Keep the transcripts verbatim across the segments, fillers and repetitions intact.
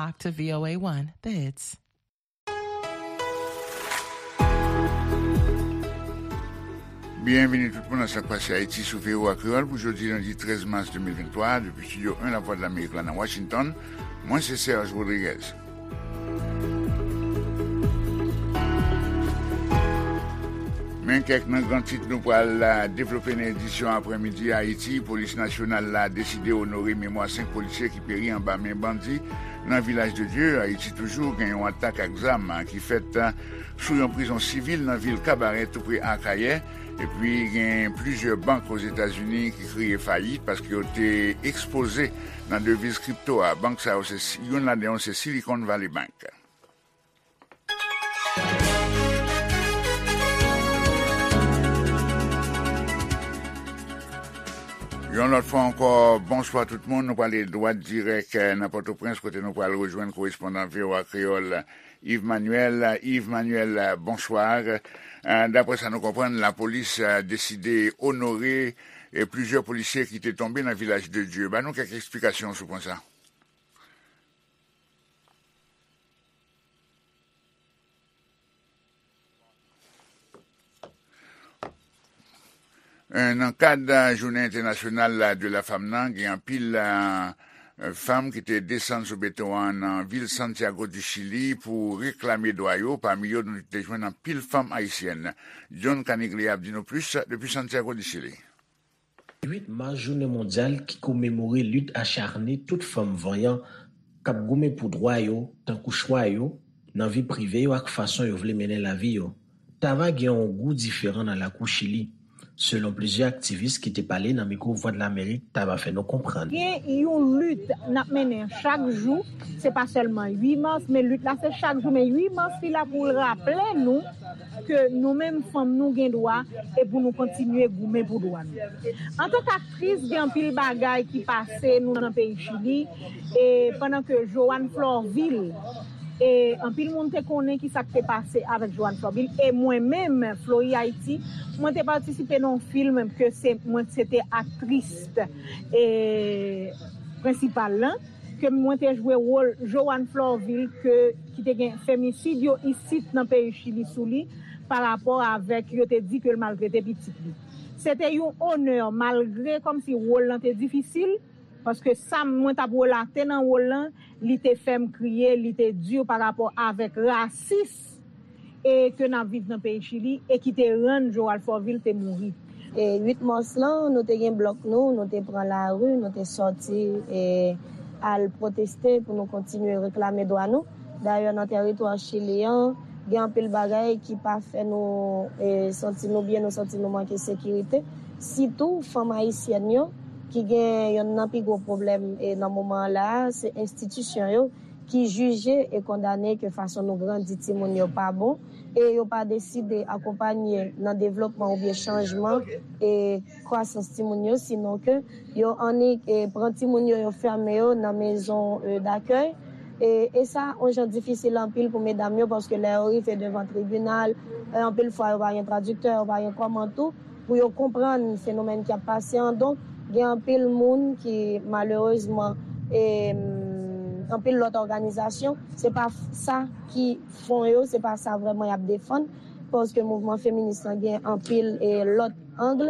Talk to V O A one, The Hits. Byenvini tout moun nan Sa k Pase Ayiti sou V O A Kreyòl pou jodi lendi trèz mas de mil venntwa, depi Estidyo en Lavwadlamerik la nan Washington. Mwen se Serge Rodriguez. Men kèk nan gran tit nou pral, a, devlope nan edisyon aprèmidi a. Ayiti, Polis Nasyonal la deside onore memwa senk polisye ki peri anba men bandi nan Vilaj de Dye. Ayiti toujou, gen yon atak ak zam, a, ki fèt, a, sou yon prizon sivil nan vil Kabarè, tou pre Akayè. Epi gen plizyè bank Ozetazini ki kriye fayit paske yo te ekspoze nan deviz kripto a. Bank sa yo, se, youn ladan yo se Silicon Valley Bank. Yon lòt fwa ankò, bonswa tout moun. Nou prale dwat dirèk, eh, nan Pòtoprens, kote nou pral rejwenn korespondan V O A Kreyòl, Yves Manuel. Yves Manuel, bonswa. Eh, daprè sa nou konprann, lapolis, eh, deside onore, eh, plizyè polisye ki te tonbe nan Vilaj de Dye. Ban nou kèk eksplikasyon sou pwen sa. Eh, nan kad, eh, Jounen Entènasyonal, eh, de la Fanm nan, gen anpil, eh, fanm ki te desann sou beton an nan vil Santiago du Chili pou reklame dwa yo. Pami yo, nou te jwenn anpil fanm ayisyèn. John Caniglia ap di nou plis depi Santiago du Chili. Uit mas, jounen mondyal ki komemore lit acharne tout fanm vanyan k ap goumen pou dwa yo, tankou chwa yo nan vi prive yo ak fason yo vle mennen lavi yo, ta va gen yon gou diferan nan lakou Chili, selon plizyè aktivis ki te pale nan mikwo Vwadlamerik, ta va fè nou konprann. Gen yon lit n ap mennen chak jou, se pa sèlman uit mas, men lit la se chak jou, men uit mas li la pou l raple nou ke nou menm fanm nou gen dwa e pou nou kontinye goumen pou dwa nou. Antanke aktris, gen anpil bagay ki pase nou nan peyi Chili, e pandan ke Joanne Florvil, e anpil moun te konnen ki sa k te pase avèk Joanne Florvil, e mwen menm, Flori Ayiti, mwen te patisipe nan yon fim ke se, mwen se te aktris, e, prensipal lan, ke mwen te jwe wòl Joanne Florvil ke, ki te gen femisid yo isit nan peyi Chili sou li, pa rapò avèk yo te di ke l maltrete pitit li. Se te yon onè, malgre kòmsi wòl lan te difisil, paske sa mwen t ap relate nan wòl lan, li te fè m kriye, li te di pa rapò avèk rasis e ke n ap viv nan peyi Chili e ki te rann Joanne Florvil te mouri. E uit mas lan, nou te gen blòk nou, nou te pran lari, nou te sòti e al pwoteste pou nou kontinye reklame dwa nou. Dayè, nan tèritwa Chili an, gen anpil bagay ki pa fè nou e santi nou byen, nou santi nou manke sekirite. Sitou fanm ayisyèn yo, ki gen yonn nan pi gwo pwoblèm e nan moman an la a, se enstitisyon yo ki jije e kondane ke fason nou grandi timoun yo pa bon, e yo pa deside akonpanye nan devlopman oubyen chanjman e kwasans timoun yo, sinon ke yo annik e pran timoun yo, yo fèmen yo nan mezon e dakèy. E, e sa, yon jan difisil anpil pou medam yo, paske lè yo rive devan tribinal, e anpil fwa yo pa gen tradiktè, yo pa gen kòman tou pou yo konprann fenomèn ki ap pase an. Donk, gen anpil moun ki, malerezman, e, anpil lòt òganizasyon, se pa f-, sa ki fon yo, se pa sa vrèman y ap defann, paske mouvman feminis lan gen anpil e lòt ang.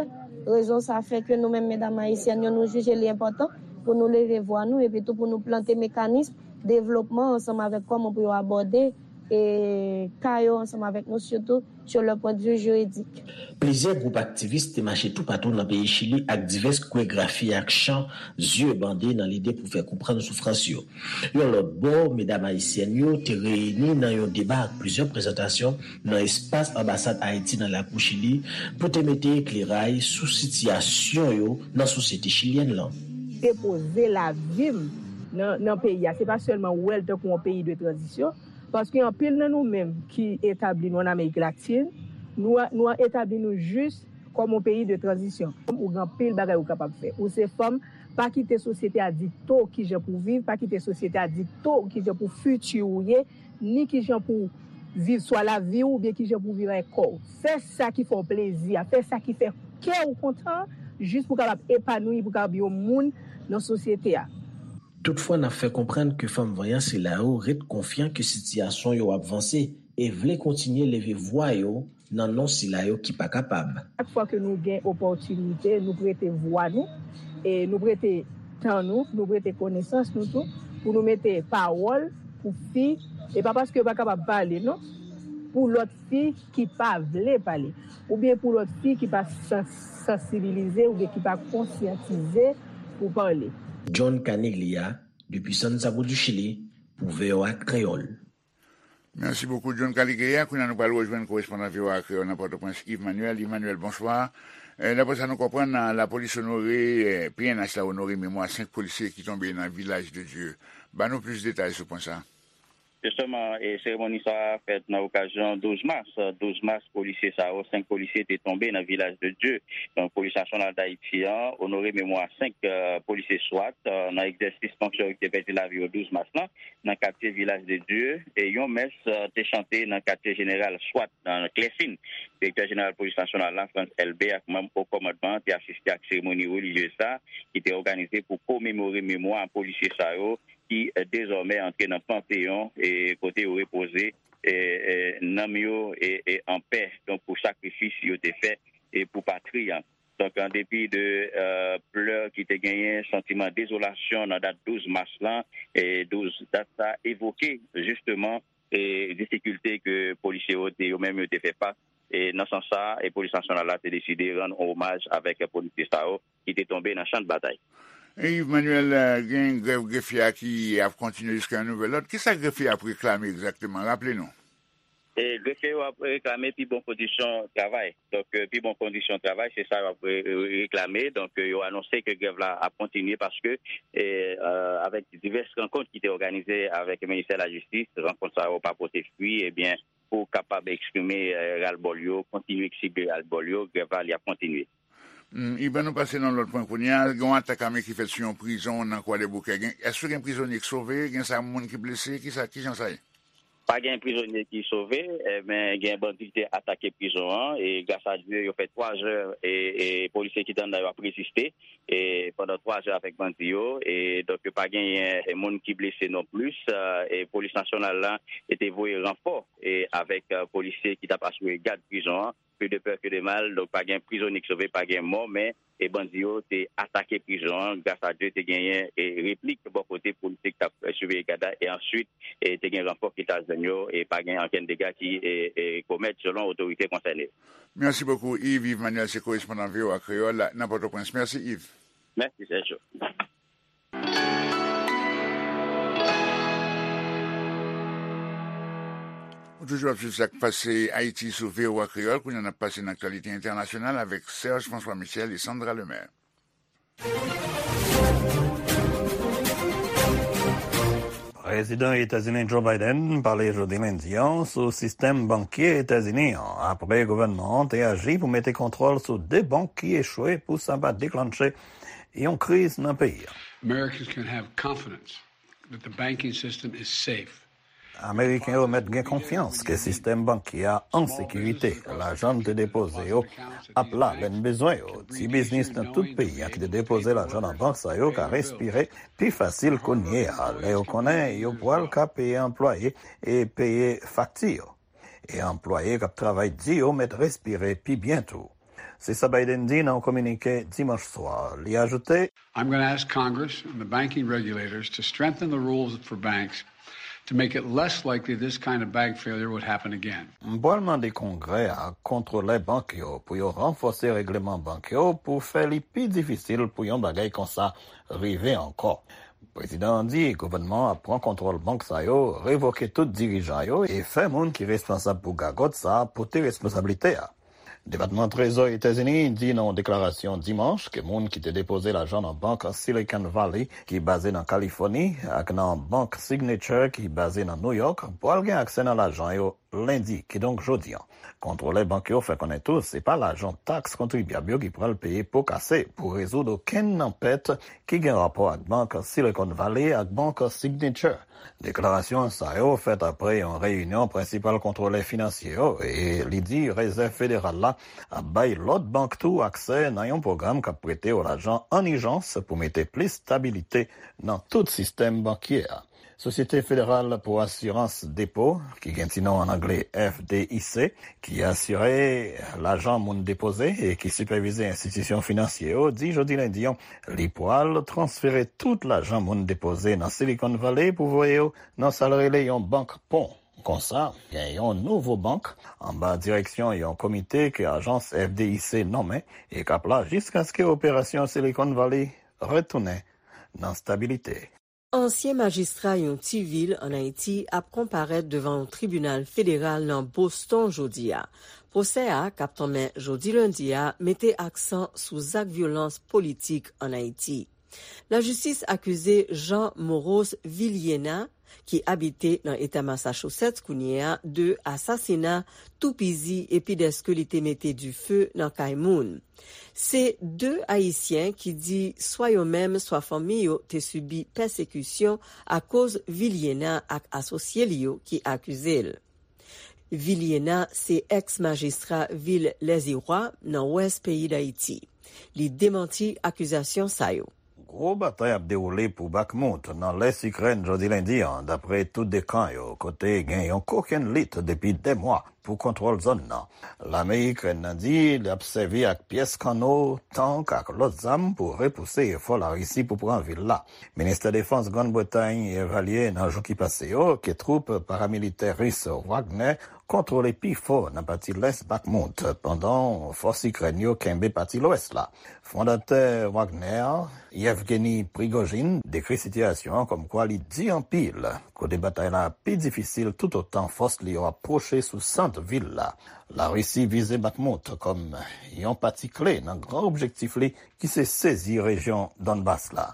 Rezon sa fè ke nou menm medam ayisyèn yo, nou jije li enpòtan pou nou leve vwa nou, epi tou pou nou plante mekanis devlopman ansanm avèk kòman pou yo abòde e ka yo ansanm avèk nou, sitou sur le point de vue juridique. Plizyè gwoup aktivis te mache toupatou nan peyi Chili ak divès koregrafi ak chan, zye bande nan lide pou fè konprann soufrans yo. Yon lòt bò, medam ayisyèn yo te reyini nan yon deba ak plizyè prezantasyon nan espas anbasad Ayiti nan lakou Chili pou te mete ekleray sou sitiyasyon yo nan sosyete chilyèn lan. Depoze lavi m nan, nan peyi a, se pa sèlman wè l tankou yon peyi de tranzisyon, paske anpil nan nou menm ki etabli nou ann Amerik Latin, nou, nou etabli nou jis kòm yon peyi de tranzisyon. Ou gen anpil bagay ou kapab fè. Ou se fanm, pa kite sosyete a dikte w kijan pou w viv, pa kite sosyete a dikte w kijan pou fiti ou ye, ni kijan pou w viv swa lavi w oubyen kijan pou w viv avèk kò w. Fè sa ki fè w plezi a, fè sa ki fè kè w kontan, jis pou w kapab epanouyi, pou w kapab yon moun nan sosyete a. Toutfwa, n ap fè konprann ke fanm vanyan sila yo ret konfyan ke sitiyasyon yo ap vanse e vle kontinye leve vwa yo nan non sila yo ki pa kapab. Chak fwa ke nou gen opòtinite, nou prete vwa nou, e nou prete tan nou, nou prete konesans nou tou, pou nou mete pawòl pou fi, e pa paske yo pa kapab pale, non, pou lòt fi ki pa vle pale, oubyen pou lòt fi ki pa san-, sansibilize oubyen ki pa konsyantize pou pale. John Caniglia, depi Santiago du Chili, pou V O A Kreyòl. Mèsi bokou, John Caligria. Kounye a, nou pral rejwenn korespondan V O A Kreyòl nan Pòtoprens, Yves Manuel. Yves Manuel, bonswa. Eh, daprè sa nou konprann, lapolis onore, eh, P N H la onore memwa senk polisye ki tonbe nan Vilaj de Dye. Ban nou plis detay sou pwen sa. Jisteman, e seremoni sa a fèt nan okazyon douz mas. Douz mas, polisye sa yo, senk polisye te tonbe nan Vilaj de Dye. Donk, Polis Nasyonal Dayiti an onore memwa senk, eh, polisye swat, eh, nan egzèsis fonksyon yo ki te pèdi lavi yo douz mas lan, nan katye Vilaj de Dye, e yon mès, eh, te chante nan katye jeneral swat nan Klèsin. Direktè jeneral polis nasyonal la, Frantz Elbé, ak manm o kòmandman an te asiste ak seremoni relijyez sa, ki te òganize pou komemore memwa polisye sa yo, ki, eh, dezòmè antre nan Panteyon, e kote yo repoze, e, e, nanm yo, e, e, an pè, donk, pou sakrifis yo te fè, e pou patri an. Donk, an depi de, eh, plè ki te genyen, santiman dezolasyon nan dat douz mas lan, e douz, dat sa evoke, jisteman, e difikilte ke polisye yo te, yo menm yo te fè fas. E nan sans sa, e Polis Nasyonal la te deside rann omaj avèk polisye sa yo ki te tonbe nan chan de batay. E Yves Manuel, eh, gen grèv grefye a ki ap kontinye jiska yon nouvèl lòd. Kisa grefye a ap reklame egzakteman? Raple nou. E grefye yo ap reklame pi bon kondisyon travay. Donk, eh, pi bon kondisyon travay, se sa yo ap re-, re-, reklame. Donk, eh, yo anonse ke grèv la ap kontinye paske, eh, eh, avèk divès rankont ki te òganize avèk ministè lajistis, rankont sa yo pa pote fwi, ebyen, pou kapab eksprime, eh, ralbòl yo, kontinye eksprime ralbòl yo, grèv la, li ap kontinye. Hmm, Yves, ann nou pase nan lòt pwen kounye a. Gen yon atak ame ki fèt sou yon prizon nan Kwadèboukè. Gen, èske gen prizonye ki sove? Gen sa moun ki blese? Kisa, kijan sa ye? Pa gen prizonye ki sove, eh, men gen bandi ki te atake prizon an, e gras a Dye, yo fè twa zè, e, e polisye ki te anndan yo ap reziste, e pandan twa zè avèk bandi yo, e donk yo pa genyen, e, moun ki blese non plis, eh, e polis nasyonal la, e te voye ranfò, e avèk, eh, polisye ki t ap asire gad prizon an, plus de peur que de mal, donk pa gen prizonye ki sove, pa gen mò, men e bandi yo te atake prizon an. Gras a Dye, te genyen e replik bò kote polisye ki t ap, eh, siveye gad la, e answit, e te gen ranfò ki t al jwenn yo, e pa gen ankenn dega ki, e, e komèt, selon otorite konsène. Mèsi bokou, Yves. Yves Manuel, se korespondan V O A Kreyòl nan Pòtoprens. Mèsi, Yves. Mèsi, Sergio. Ou toujou ap swiv sa k pase Ayiti sou V O A Kreyòl. Kounye a, n ap pase nan aktyalite entènasyonal avèk Serge François Michel e Sandra Lemaire. Prezidan Etazini Joe Biden pale jodi lendi an sou sistèm bankye Etazini an, apre gouvènman an te aji pou mete kontwòl sou de bank ki echwe pou sa pa deklanche yon kriz nan peyi a. Americans can have confidence that the banking system is safe. Ameriken yo mèt gen konfyans ke sistèm bankye a an sekirite. Lajan n te depoze yo ap la lè n bezwen yo. Ti biznis nan tout peyi a ki te depoze lajan nan bank sa yo ka respire pi fasil kounye a, lè yo konnen yo pral ka peye anplwaye e peye fakti yo. E anplwaye k ap travay di yo mèt respire pi byen tou. Se sa Biden di nan yon kominike dimanch swa. Li ajoute, I'm gonna ask Congress and the banking regulators to strengthen the rules for banks to make it less likely this kind of bank failure would happen again. M pral mande Kongrè a ak kontwolè bank yo pou yo ranfòse règleman bank yo pou fè li pi difisil pou yon bagay konsa rive ankò. Prezidan an di gouvènman an ap pran kontwòl bank sa yo, revoke tout dirijan yo e fè moun ki responsab pou gagòt sa a pote responsablite a. Depatman Trezò Etazini di nan yon deklarasyon dimanch ke moun ki te depoze lajan nan bank Silicon Valley, ki baze nan Kalifòni, ak nan bank Signature, ki baze nan Nouyòk, pral gen aksè nan lajan yo lendi, kidonk jodi an. Kontwolè bank yo fè konnen tou se pa lajan taks kontribyab yo ki pral peye po kase pou rezoud okenn nan pèt ki gen rapò ak bank Silicon Valley ak bank Signature. Deklarasyon sa yo fèt apre yon reyinyon prensipal kontwolè finansye yo, e li di Rezèv Federal la ap bay lòt bank tou aksè nan yon pwogram k ap prete yo lajan an ijans pou mete plis stabilite nan tout sistèm bankye a. Sosyete Federal pou Asirans Depo, ki gen ti non an angle F D I C, ki asire lajan moun depoze e ki sipèvize enstitisyon finansye yo, di jodi lendi an, li pwal transfere tout lajan moun depoze nan Silicon Valley pou voye yo nan sa l rele yon bank pon. Konsa, gen yon nouvo bank anba direksyon yon komite ke ajans F D I C nonmen e k ap la jiskaske operasyon Silicon Valley retounen nan stabilite. Ansyen majistra yon ti vil ann Ayiti ap konparèt devan yon tribinal federal nan Boston jodi a. Pwosè a, k ap tanmen jodi lendi a, mete aksan sou zak vyolans politik ann Ayiti. Lajistis akize Jean Moros Viliena, ki abite nan eta Massachusetts kounye a, de asasina, toupizi epi dèske li te mete dife nan kay moun. Se de Ayisyen ki di swa yo menm, swa fanmi yo te sibi pèsekisyon akoz Viliena ak asosye li yo ki akize l. Viliena se èks-majistra vil Lèziwa nan wès peyi Dayiti. Li demanti akizasyon sa yo. Gwo batay ap dewoule pou Bakhmut, nan lès Ikrèn, jodi lendi an, dapre tout de kan yo, kote gen yon kokenn lit depi dè mwa pou kontwòl zòn nan. Lame Ikrèn nan di l ap sèvi ak pyès kanno, tank ak lòt zam pou repouse efò Larisi pou pran vil la. Ministè Defans Grann Bretay evalye nan jou ki pase yo ke twoup paramilitè ris Wagner kontwole pifò nan pati lès Bakhmut, pandan fòs Ikrèn yo kenbe pati lwès la. Fondatè Wagner, Yevgeny Prigozhin, dekri sitiyasyon an kòmkwa li di anpil, kote batay la pi difisil toutotan fòs li yo ap pwoche sou sant vil la. Larisi vize Bakhmut kòm yon pati kle nan gran objektif li ki se sezi rejyon Donbas la.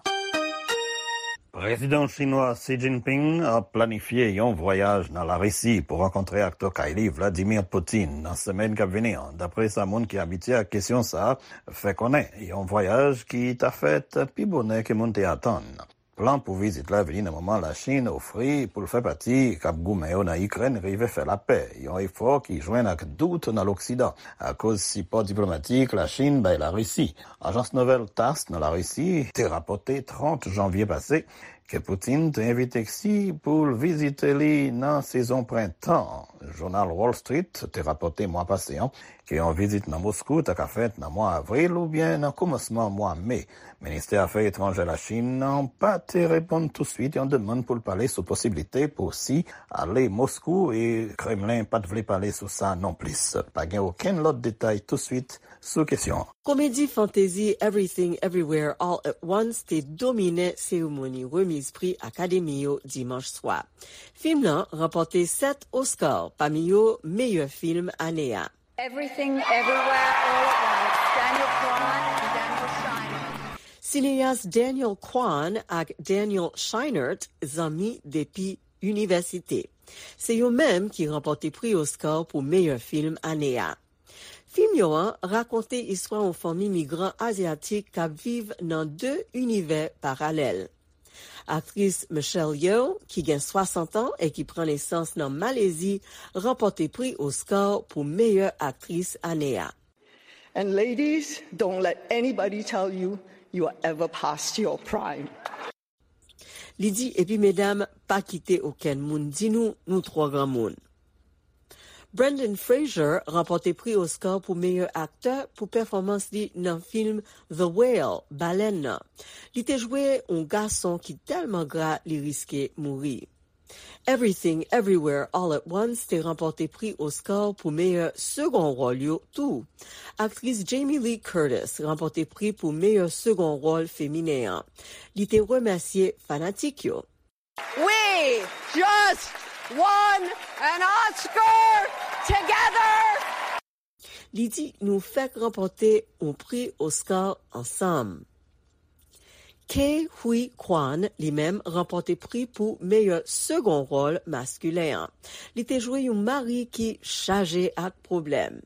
Prezidan chinwa Xi Jinping ap planifye yon vwayaj nan Larisi pou rankontre ak tokay li Vladimir Putin nan semèn k ap vini an, dapre sa moun ki abitye ak kesyon sa a fè konnen, yon vwayaj ki ta fèt pi bonè ke moun te atann. Plan pou vizit la vini nan moman Lachin ofri pou l fè pati k ap goumen yo nan Ikrèn rive fè lapè, yon efò ki jwenn ak dout nan Loksidan akoz sipò diplomatik Lachin bay Larisi. Ajans nouvèl TASS nan Larisi te rapòte trant janvye pase ke Putin te envite Xi pou l vizite li nan sezon prentan. Jounal Wall Street te rapòte mwa pase an ke yon vizit nan Moskou ta ka fèt nan mwa avril oubyen nan kòmansman mwa me. Ministè Afè Etranjè Lachin nan pa te reponn tousuit yon demann pou l pale sou posiblite pou Xi ale Moskou, e Kremlen pa t vle pale sou sa nonplis. Pa gen okenn lòt detay tousuit sou kesyon an. Komedi fantezi Everything Everywhere All at Once te domine seremoni remiz pri Akademi yo dimanch swa. Fim nan ranpòte sèt Oscar, pami yo meyè fim ane a. Everything Everywhere All at Once, Daniel Kwan and Daniel Scheinert. Sineyas Daniel Kwan ak Daniel Scheinert zanmi depi inivèsite. Se yo menm ki ranpòte pri Oscar pou meyè fim ane a. Fim yo an rakonte istwa yon fanmi migran azyatik k ap viv nan de inivè paralèl. Aktris Michelle Yeoh, ki gen swasant an e ki pran nesans nan Malezi, ranpòte pri Oscar pou meyè aktris ane a. And ladies, don't let anybody tell you you are ever past your prime. Li di, epi medam, pa kite okenn moun di nou nou twò granmoun. Brendan Fraser ranpòte pri Oscar pou meyè aktè pou pèfòmans li nan fim The Whale, Balèn nan. Li te jwe yon gason ki tèlman gra li riske mouri. Everything Everywhere All at Once te ranpòte pri Oscar pou meyè segon wòl yo tou. Aktris Jamie Lee Curtis ranpòte pri pou meyè segon wòl feminen an. Li te remèsye fanatik yo. We just won an Oscar together! Li di, nou fèk ranpòte yon pri Oscar ansanm. Ke Huy Quan, li menm, ranpòte pri pou meyè segon wòl maskilen an. Li te jwe yon mari ki chaje ak pwoblèm.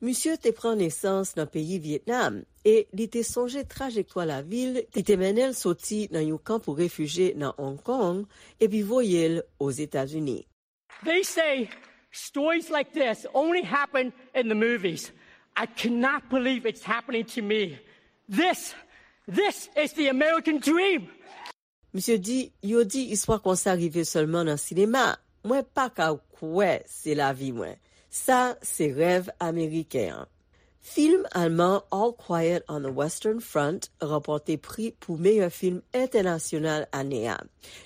Misye te pran nesans nan peyi Vyetnam e li te sonje trajektwa lavi l ki te mennen l soti nan yon kan pou refijye nan Hong Kong epi voye l Ozetazini. They say stories like this only happen in the movies. I cannot believe it's happening to me. This, this is the American dream. Misye di, yo di istwa konsa rive sèlman nan sinema. Mwen pa ka kwè se lavi mwen. Sa se rèv ameriken an. Fim alman All Quiet on the Western Front ranpòte pri pou meyè fim entènasyonal ane a.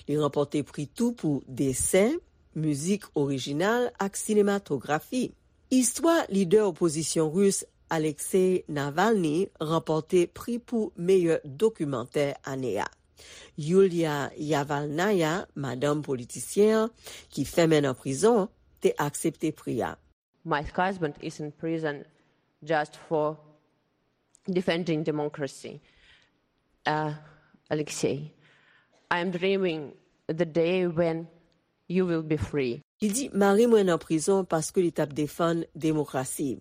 Li ranpòte pri tou pou desen, mizik orijinal ak sinematografi. Istwa lidè opozisyon ris Alexei Navalny ranpòte pri pou meyè dokimantè ane a. Yulia Yavalnaya, madanm politisyen an, ki fèmen nan prizon, te aksepte pri a. My husband is in prison just for defending democracy. Uh, Alexei, I am dreaming the day when you will be free. Li di, mari mwen nan prizon paske li t ap defann demokrasi.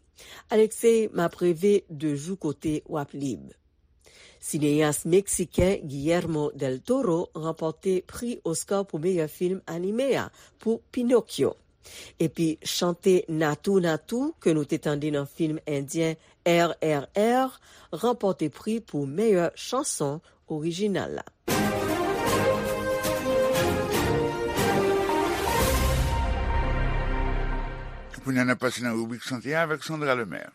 Alexei, m ap reve de jou kote w ap lib. Sineyas meksiken Guillermo del Toro ranpòte pri Oscar pou meyè fim anime a pou Pinocchio. Epi chante Natou Natou ke nou te tande nan fim endyen R R R ranpòte pri pou meyè chanson orijinal la. Kounye a n ap pase nan ribrik sante a avèk Sandra Lemaire.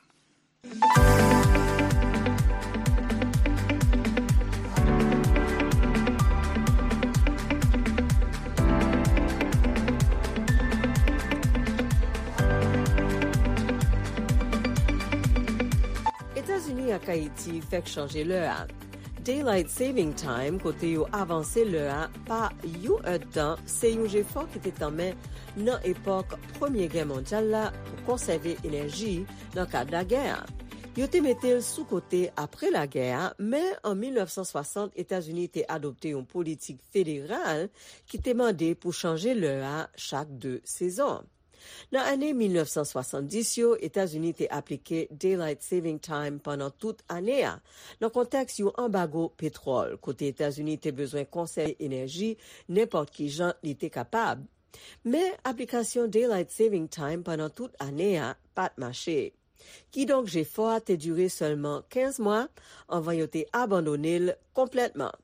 Etazini ak Ayiti fèk chanje lè a. Daylight Saving Time, kote yo avanse lè a pa yon èdtan, se yon jefò ki te tanmen nan epòk Premye Gè Mondyal la pou konsève enèji nan kad lagè a. Yo te mete l sou kote apre lagè a, men an mil nèf san swasant Etazini te adopte yon politik federal ki te mande pou chanje lè a chak de sezon. Nan ane mil nèf san swasanndis yo, Etazini te aplike Daylight Saving Time pandan tout ane a, nan kontèks yon anbago petwòl, kote Etazini te bezwen konsève enèji nenpòt ki jan li te kapab. Men, aplikasyon Daylight Saving Time pandan tout ane a pa t mache. Kidonk, jefò a te dire sèlman kenz mwa anvan yo te abandone l konplètman.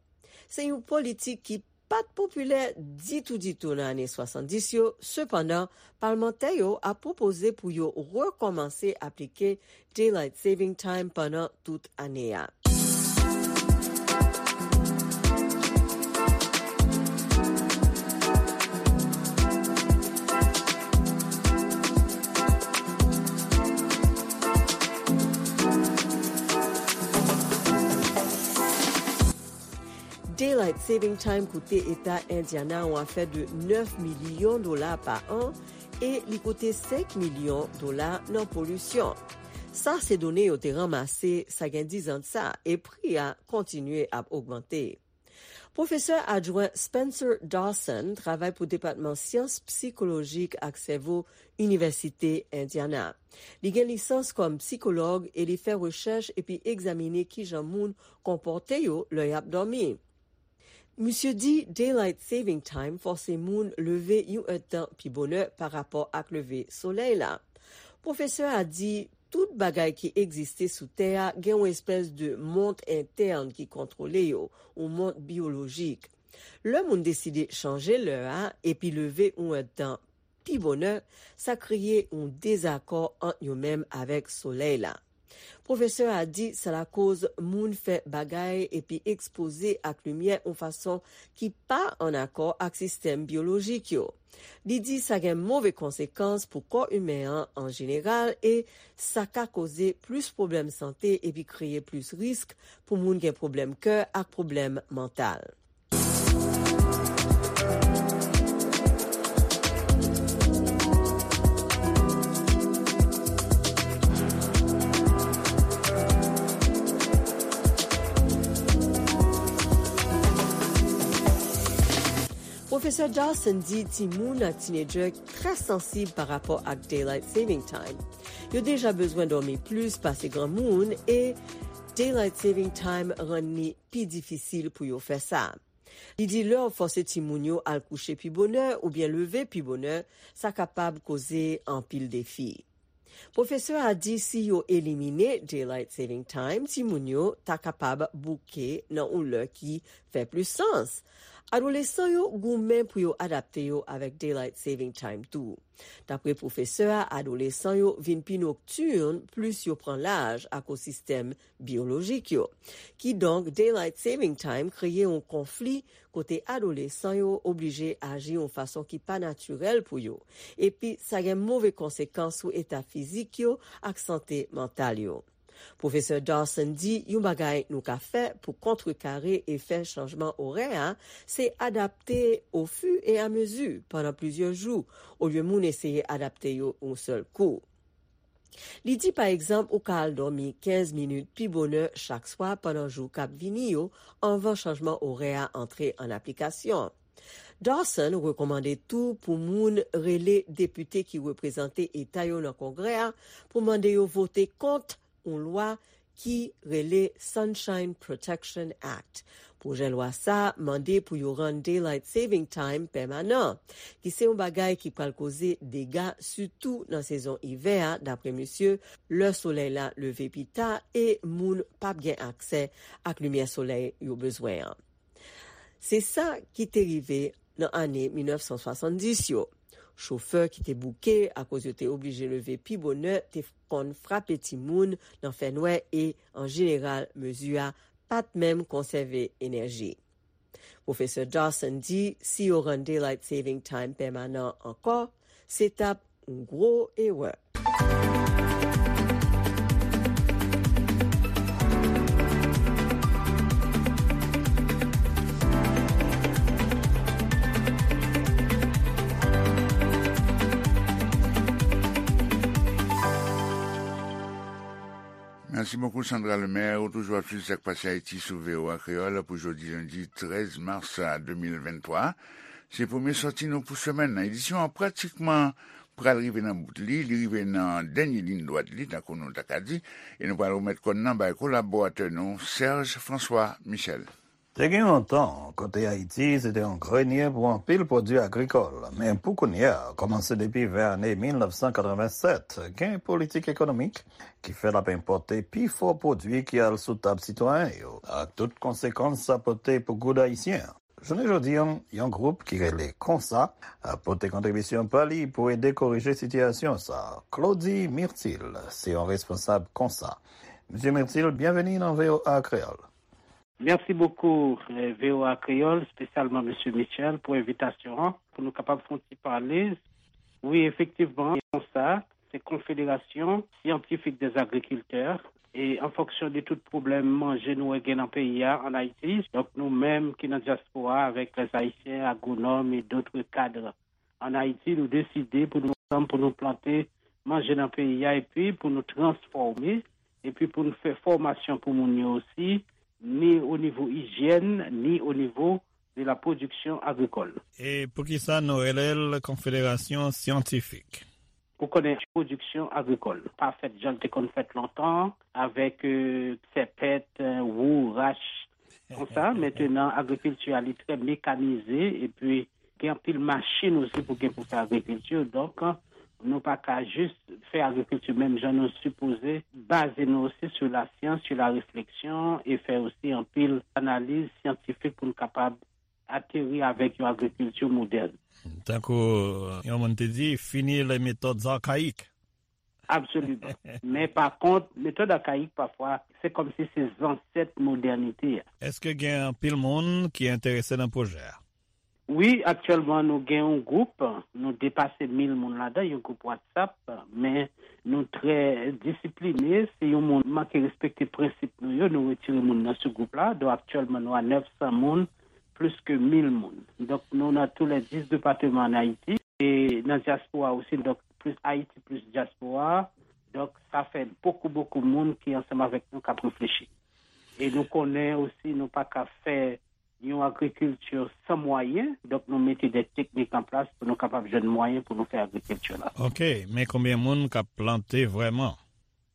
Se yon politik ki pa t popilè ditou ditou nan ane swasanndis yo, sepandan, palmantè yo ap pwopoze pou yo rekòmanse aplike Daylight Saving Time pandan tout ane a. Daylight Saving Time koute Eta Indiana yon afè de nèf milyon dola pa an e li koute senk milyon dola nan polisyon. Sa se done yo te ranmase sa gen diz an de sa, e pri a kontinye ap ogmante. Pwofesè adjwen Spencer Dawson travay pou Depatman Syans Sikolojik ak Sèvo Inivèsite Indiana. Li gen lisans kòm sikològ e li fè rechèch epi egzamine kijan moun konpòte yo lè y ap dòmi. Misye di Daylight Saving Time fòse moun leve yon èdtan pi bonè parapò ak leve solèy la. Pwofesè a di tout bagay ki egziste sou tè a gen yon espès de mont entèn ki kontwole yo, yon mont biyolojik. Lè moun deside chanje lè a epi leve yon èdtan pi bonè, sa kreye yon dezakò ant yo menm avèk solèy la. Pwofesè a di sa lakoz moun fè bagay epi ekspoze ak limyè yon fason ki pa ann akò ak sistèm biyolojik yo. Li di sa gen move konsekans pou kò imen an an jeneral e sa ka koze plis pwoblèm sante epi kreye plis risk pou moun gen pwoblèm kè ak pwoblèm mantal. Pwofesè Dawson di timoun ak tinedjè trè sansib pa rapò ak Daylight Saving Time. Yo deja bezwen dòmi plis pase granmoun e Daylight Saving Time rann li pi difisil pou yo fè sa. Li di lè w fòse timoun yo al kouche pi bonè oubyen leve pi bonè, sa kapab koze anpil defi. Pwofesè a di si yo elimine Daylight Saving Time, timoun yo ta kapab bouke nan yon lè ki fè plis sans. Adolesan yo goumen pou yo adapte yo avèk Daylight Saving Time tou. Dapre pwofesè a, adolesan yo vin pi noktirn plis yo pran laj akoz sistèm biyolojik yo. Kidonk, Daylight Saving Time kreye yon konfli kote adolesan yo oblije aji yon fason ki pa natirèl pou yo, epi sa gen move konsekans sou eta fizik yo ak sante mantal yo. Pwofesè Dawson di yon bagay nou ka fè pou kontrekare efè chanjman orè a, se adapte ofiriamezi pandan plizyè jou, olye moun eseye adapte yo yon sèl kou. Li di, pa egzanp, ou ka al dòmi kenz minit pi bonè chak swa pandan jou k ap vini yo, anvan chanjman orè a antre an aplikasyon. Dawson rekòmande tou pou moun rele depite ki reprezante eta yo nan Kongrè a pou mande yo vote kont yon lwa ki rele Sunshine Protection Act. Pwojè lwa sa a mande pou yo rann Daylight Saving Time pèmanan, ki se yon bagay ki pral koze dega, sitou nan sezon ivè a, dapre misye, lè solèy la leve pi ta e moun p ap gen aksè ak limyè solèy yo bezwen an. Se sa ki te rive nan ane mil nèf san swasanndis yo. Chofè ki te bouke akoz yo te oblije leve pi bonè te konn frape timoun nan fènwè e, an jeneral, mezi a pa t menm konsève enèji. Pwofesè Dawson di si yo rann Daylight Saving Time pèmanan ankò, se t ap yon gwo erè. Mèsi bokou, Sandra Lemaire. Ou toujou ap swiv Sa k Pase Ayiti sou V O A Kreyòl pou jodi lendi trèz mas de mil venntwa. Se premye sòti nou pou semèn nan. Edisyon an pratikman pral rive nan bout li, li rive nan dènye liy dwat li, tankou nou ta ka di, e nou pral remèt kòn nan bay kolaboratè nou, Serge François Michel. Te gen yon tan kote Ayiti se te yon grenye pou anpil pwodui agrikòl, men pou kounye a, kòmanse depi vè ane mil nèf san katreven sèt, gen politik ekonomik ki fè l ap enpòte pifò pwodui ki al sou tab sitwayen yo, ak tout konsekans sa pote pou goud ayisyen an. Jounen jodi a, yon gwoup ki rele Konsa ap pote kontribisyon pa li pou ede korije sitiyasyon sa a. Claudy Myrtil se yon responsab Konsa. Mesye Myrtil, byenveni nan V O A Kreyòl. Mèsi bokou, eh, V O A Kreyòl, espesyalman Mesye Michel, pou envitasyon an, pou nou kapab fè yon ti pale. Wi, efektivman, Konsa, se Konfederasyon Syantifik dè Agrikiltè, e an fonksyon de tout pwoblèm manje nou wè gen nan peyi a, ann Ayiti, donk nou menm ki nan dyaspora avèk lè Ayisyen, agwonòm e dòt kad ann Ayiti, nou deside pou nou ansanm, pou nou plante manje nan peyi a, epi pou nou transfòme, epi pou nou fè fòmasyon pou moun yo osi, ni o nivo ijyèn, ni o nivo de la pwodiksyon agrikòl. E poukisa nou rele l Konfederasyon Syantifik? Ou konnen, pwodiksyon agrikòl pa fèt jan l te konn fèt lontan, avèk, euh, sèpèt, euh, wou, rach, konsa. Mentenan, agrikilti a, li trè mekanize, epi gen anpil machin osi pou gen pou fè agrikilti. Donk, nou pa ka jis fè agrikilti menm jan, nou sipoze baze nou osi sou lasyans, sou la refleksyon, e fè osi anpil analiz syantifik pou n kapab ateri avèk yon agrikilti modèn. Tankou yon moun te di, fini les méthodes archaïques. Absoliman. Men pa kont, metòd akayik pafwa, se kòmsi se zansèt modènite a. Èske gen anpil moun ki enterese nan pwojè a? Wi, aktyèlman nou gen yon gwoup, nou depase mil moun ladan, yon gwoup WhatsApp, men nou trè disipline. Si yon moun manke respekte prensip nou yo, nou retire moun nan sou gwoup la. Donk aktyèlman nou a nèf san moun, plis ke mil moun. Donk nou nan tou lè dis depatman ann Ayiti. E nan dyaspora osi, donk plis Ayiti plis dyaspora. Donk sa fè bokou, bokou moun ki ansanm avèk nou k ap reflechi. E nou konnen osi nou pa ka fè yon agrikilti san mwayen, donk nou mete de teknik an plas pou nou kapab jwenn mwayen pou nou fè agrikilti la. Ok, men konbyen moun k ap plante vrèman?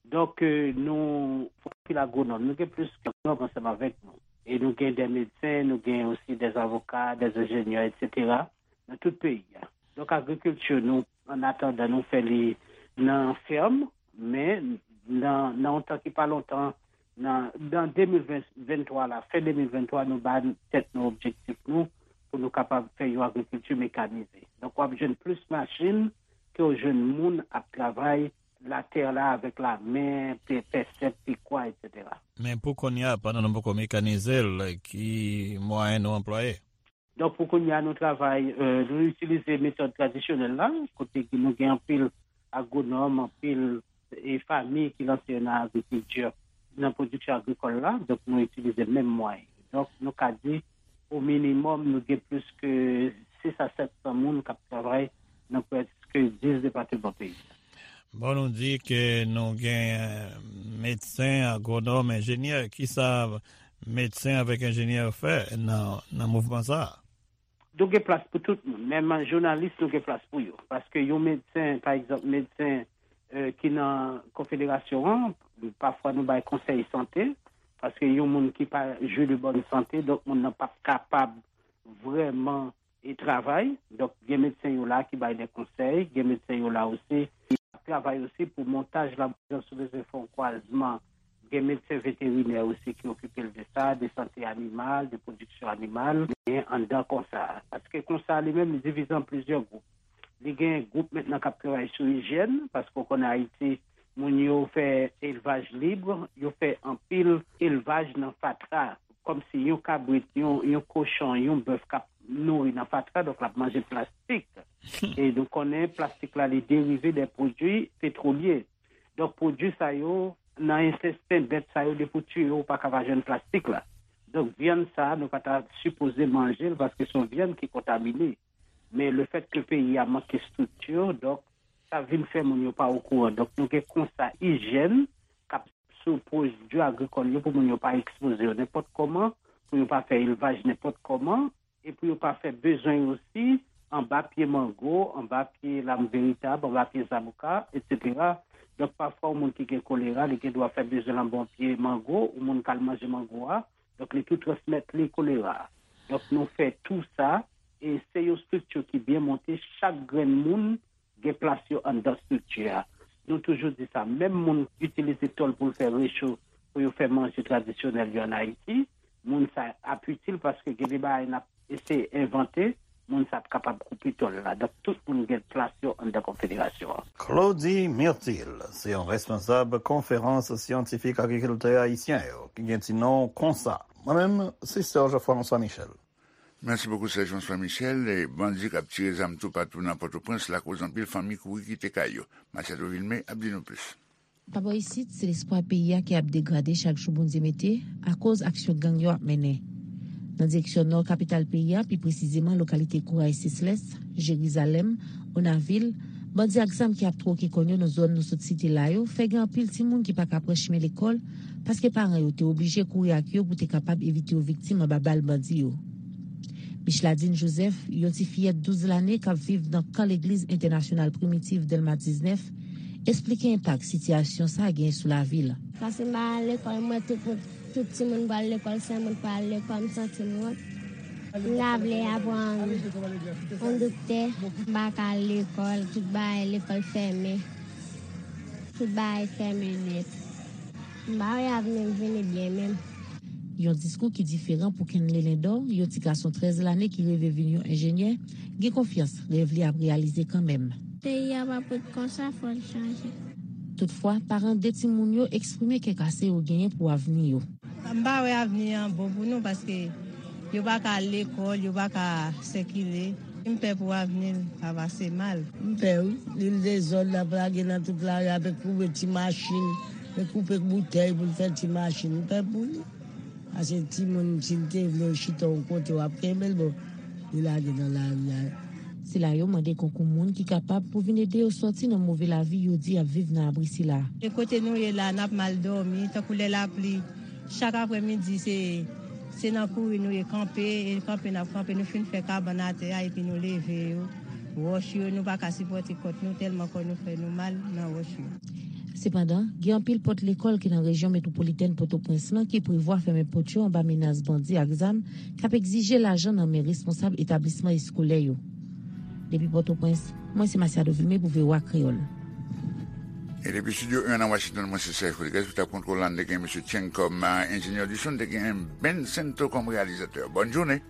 Donk, euh, nou, anpil agwonòm, nou gen plis ke agwonòm ansanm avèk nou. E nou gen de medsen, nou gen osi de avoka, de enjenyè, etsetera, nan tout peyi a. Donk, agrikilti, nou, an atandan, nou fè li nan fèm, men nan, nan yon tan ki pa lontan, nan, nan de mil venntwa la, fen de mil venntwa, nou ba tèt nou objektif nou pou nou kapab fè yon agrikilti mekanize. Donk, w ap jwenn plis machin ke w jwenn moun ap travay latè la avèk lamen, pe-, pèsèt, pikwa, etsetera. Men pou kounye a, pandan nou poko mekanize l, ki mwayen nou anplwaye? Donk, pou kounye a, nou travay, euh, nou itilize metòd tradisyonèl la, kote ki nou gen anpil agwonòm, anpil, e, fanmi ki lanse yo nan agrikilti, nan pwodiksyon agrikòl la. Donk, nou itilize menm mwayen. Donk, nou ka di, o minimòm, nou gen plis ke sis a sèt san moun k ap travay nan prèske dis depatman peyi a. Bon, nou di ke nou gen, euh, medsen, agwonòm, enjenyè. Kisa medsen avèk enjenyè fè nan, nan mouvman sa a? Nou gen plas pou tout moun. Menm jounalis, nou gen plas pou yo. Paske yon medsen, pa egzanp, medsen, euh, ki nan konfederasyon an, pafwa nou bay konsèy sante, paske yon moun ki pa jwi de bòn sante, donk moun nan p ap kapab vrèman e travay. Donk, gen medsen yo la ki bay de konsèy, gen medsen yo la osi ki ap travay osi pou montaj la, jan si w bezwen fè yon kwazman, gen medsen veterinè osi ki okipe l de sa, de sante animal, de pwodiksyon animal, gen anndan konsa. Paske konsa li menm, li divize an plizyè gwoup. Li gen gwoup mentnan k ap travay sou ijyèn, paske w konnen Ayiti, moun yo fè elvaj lib, yo fè anpil elvaj nan fatra. Kòmsi yon kabrit, yon, yon kochon, yon bèf k ap nouri nan fatra, donk l ap manje plastik. E nou konnen plastik la, li derive de pwodui petwolye. Donk, pwodui sa yo, nan entesten bèt sa yo, depi w tiye yo, ou pa ka pa jwenn plastik la. Donk, vyann sa a, nou pa ta sipoze manje l, paske se yon vyann ki kontamine. Men lefètke peyi a manke estrikti, donk, sa vin fè moun yo pa okouran. Donk, nou gen konsa ijyèn k ap sou pwodui agrikòl yo pou moun yo pa ekspoze yo nenpòt kòman, pou yo pa fè elvaj nenpòt kòman, e pou yo pa fè bezwen yo osi anba pye mango, anba pye lam veritab, anba pye zaboka, etsetera. Donk, pafwa, yon moun ki gen kolera, li gen dwa fè bezwen l anba yon pye mango, yon moun k al manje mango a, donk, li tou transmèt li kolera. Donk, nou fè tou sa, e se yon estrikti ki byen monte, chak grenn moun gen plas yo anndan estrikti a. Nou toujou di sa, menm moun itilize tòl pou l fè recho, pou yo fè manje tradisyonèl yo ann Ayiti, moun sa ap itil paske gen de bagay n ap eseye envante, moun sa ap kapab koupe tòl la. Donk, tout moun gen plas yo anndan konfederasyon an. Claudy Myrtil, se yon responsab konferans syantifik agrikiltè ayisyen yo, ki gen ti non konsa. Mwen menm, se Serge François Michel. Mèsi bokou, Serge François Michel. E bandi k ap tire zam toupatou nan Pòtoprens lakoz anpil fanmi kouri kite kay yo. Machado Vilmé ap di nou plis. Pa bò isit, se lespwa peyi a ki ap degrade chak jou Bondye mete, akoz aksyon gang yo ap mennen. Nan direksyon nò kapital peyi a, pi presizeman lokalite Kouraj Seslès, Jerizalèm, Onavil, bandi ak zam ki ap twoke kòn yo nan zòn nou sot site la yo, fè gen anpil timoun ki pa ka pran chimen lekòl, paske paran yo te oblije kouri ak yo pou te kapab evite yo viktim anba bal bandi yo. Micheladine Joseph, yon ti fiyèt douz lane k ap viv nan kan legliz entènasyonal Primitif Dèlma diznèf, esplike enpak sitiyasyon sa a genyen sou lavi l. Paske m pa al lekòl, m wè tout moun, tout timoun pral lekòl, sèl mwen k pa al lekòl, m santi m wont. M ta vle aprann yon doktè, m pa ka al lekòl, tout bagay lekòl fèmen. Tout bagay fèmen nèt. M pa wè avni m vini byen menm. Yon diskou ki diferan pou Kenley Lindor, yon ti gason trèz lane ki reve vin yon enjenyè, gen konfyans rèv li ap reyalize kanmenm. Peyi a p ap ret konsa, fò l chanje. Toutfwa, paran de timoun yo eksprime kè kase yo genyen pou avni yo. M pa wè avni an bon pou nou paske yo pa ka al lekòl, yo pa ka sikile. M pè pou avni l pa pase mal. M pè wi, li l dezòd, l ap lage nan tout lari a, pe koube ti machin, pe koupe boutèy pou l fè ti machin. M pè pou li. Paske timoun, si l te vle chita yon kote, w ap kenbe l, bon, li lage nan lari a. Sila yo mande konkou moun ki kapab pou vin ede yo sòti nan move lavi yo di y ap viv nan abri sila. E kote nou ye la, n ap mal dòmi, tankou lè lapli, chak aprèmidi, se, Se nan kouri nou ye kanpe, e kanpe n ap kanpe, nou fin fè kabann atè a epi nou leve yo. Wòch yo, nou pa ka sipòte kòt nou tèlman kò nou fè nou mal nan wòch yo. Sepandan, gen anpil pòt lekòl ki nan rejyon metwopolitèn Pòtoprens lan ki prevwa fèmen pòt yo anba menas bandi ak zam k ap egzije lajan nan men responsab etablisman eskolè yo. Depi Pòtoprens, mwen se Masiado Vilme pou V O A Kreyòl. E depi Studio un nan Washington, mwen se Serge Rodriguez pou tab kontwòl la, n te gen Mesye Cheng kòm enjenyè di son, n te gen Ben Sento kòm reyalizatè. Bòn jounen.